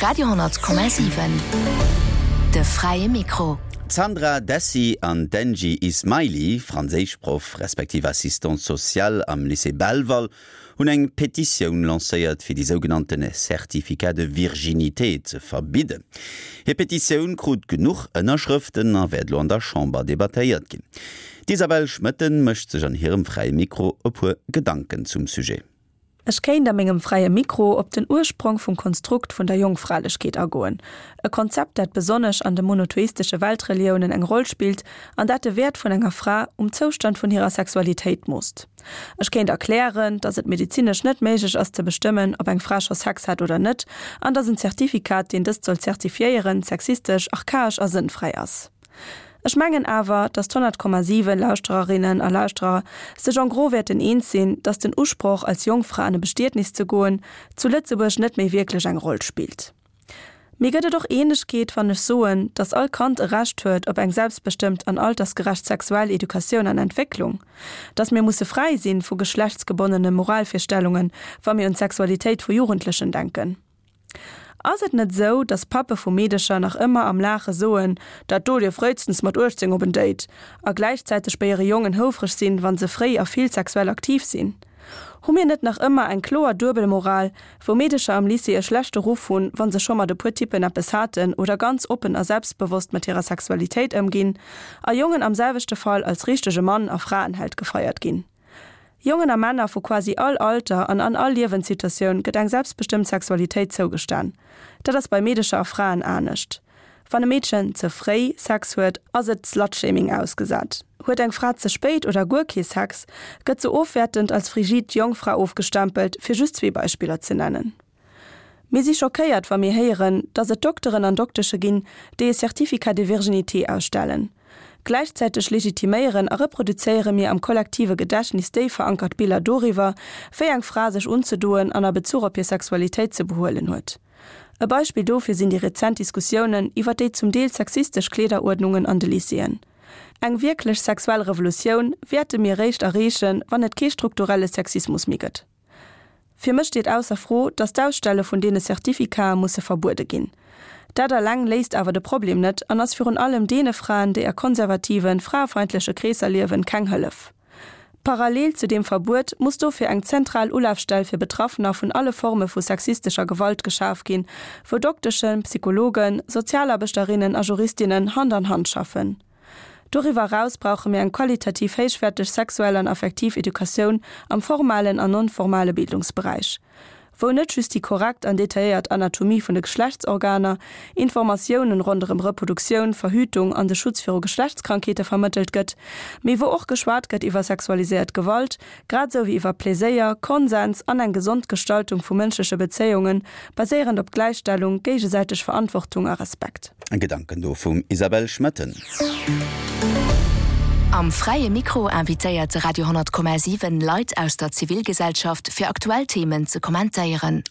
Radio 10,7 De fräie Mikro. D'Sandra Dessy an d'Angie Ismaili, Franséischproff respektiv Assistante sociale am Lycée Belval, hunn eng Petitioun lancéiert, fir déi sougenannte Certificat de virginité ze verbidden. Hir Petitioun krut genuch Ënnerschrëften a wäert elo an der Chamber debattéiert ginn. D'Isabelle Schmoetten mécht sech an hirem Fräie Mikro e puer Gedanken zum Sujet. Ech kéint a mengem Fräie Mikro op den Ursprong vum Konstrukt vun der Jongfralechkeet agoen, e Konzept, dat besonnesch an de monotheistesche Weltreliounen eng Roll spillt an dat de Wäert vun enger Fra um Zoustand vun hirer Sexualitéit moosst. Ech kéint erklären, dass et medezinesch net méiglech ass ze bestëmmen, ob eng Fra scho Sex hat oder net, an dass en Zertifikat, deen dëst soll zertifiéieren, sexistesch, archaesch a sënnfräi ass. Ech mengen awer, dass d'100,7 Lauschtererinnen a Lauschterer sech en gros wäerten eens sinn, dass den Usproch, als Jongfra an e Bestietnis ze goen, zu Lëtzebuerg net méi wierklech eng Roll spillt. Mee gëtt et och Eenegkeet, wann ech soen, dass all Kand e Recht huet op eng selbstbestëmmt an altersgerecht sexuell Educatioun an Entwécklung? Dass mir musse fräi sinn vu geschlechtsgebonnene Moralvirstellungen, wa mir un d'Sexualitéit vu Jugendlechen denken? Ass et net esou, dass Pappe vu Meedecher nach ëmmer am Laache soen, dat do dierf fréistens mat 18 op en Date, a gläichzäiteg bei hire Jongen houfreg sinn, wa se fréi a vill sexuell aktiv sinn? Hu mir net nach ëmmer eng kloer Duebelmoral, wou Meedecher am Lycée e schlechte Ruff hunn, wa se scho mat e puer Typpen eppes haten oder ganz oppen a selbstbewosst mat hirer Sexualitéit ëmginn, a Jongen am selwechte Fall als richtege Mann a Fraenheld gefeiert ginn? Jongen a Männer vu quasi all Alter an an all Liewenssituatioun gëtt eng selbstbestëmmt Sexualitéit zougestan. Dat ass bei Meedecher a Fraen anescht. Wann e Meedchen ze fréi Sex huet, ass et Slutshaming ausgesat. Huet eng Fra ze spéit oder guer kee Sex, gëtt se ofwäertend als frigid Jongfra ofgestempelt, fir just zwee Beispiller ze nennen. Mir si schockéiert, wa mir héieren, dass et Dokteren an Doktesche ginn, déi e Certificat de virginité ausstellen. Gläichzäiteg legitiméieren a reproduzéiere mir am kollektive Gedächtnis déif verankert Biller doriwwer, wéi eng Fra sech unzedoen an a Bezuch op hir Sexualitéit ze behuelen huet. E Beispill dofir sinn déi rezent Diskussiounen iwwer déi zum Deel sexistesch Kleederuerdnungen an de Lycéeën. Eng wierklech sexuell Revolutioun wäerte mir eréischt erreechen, wann et kee strukturelle Sexismus méi gëtt. Fir mech steet ausser Fro, dass d'Ausstelle vun deene Certificate musse verbuede ginn. Dat alleng léist awer de Problem net an ass virun allem deene Fraen, déi a konservativen, fraefeindleche Kreesser liewen, keng Hëllef. Parallel zu deem Verbuet muss dofir eng zentral Ulafstell fir Betraffener vun alle Forme vu sexistescher Gewalt geschaf ginn, wou Dokteschen, Psychologen, Sozialarbechterinnen a Juristinnen Hand an Hand schaffen. Doriwwer eraus brauche mir eng qualitativ héichwäerteg sexuell an affektiv Educatioun am formalen an non-formale Bildungsberäich, wou net just déi korrekt an detailléiert Anatomie vun de Geschlechtsorganer, Informatiounen ronderëm Reproduktioun, Verhütung an de Schutz viru Geschlechtskrankheete vermëttelt gëtt, mee wou och geschwat gëtt iwwer sexualiséiert Gewalt, grad esou wéi iwwer Pleséier, Konsens an eng gesond Gestaltung vu mënschleche Bezéiungen, baséierend op Gläichstellung, géigesäiteg Verantwortung a Respekt. Gedanken do vum Isabelle Schmoetten. Am Fräie Mikro invitéiert de Radio 10,7 Leit aus der Zivilgesellschaft fir aktuell Themen ze kommentéieren.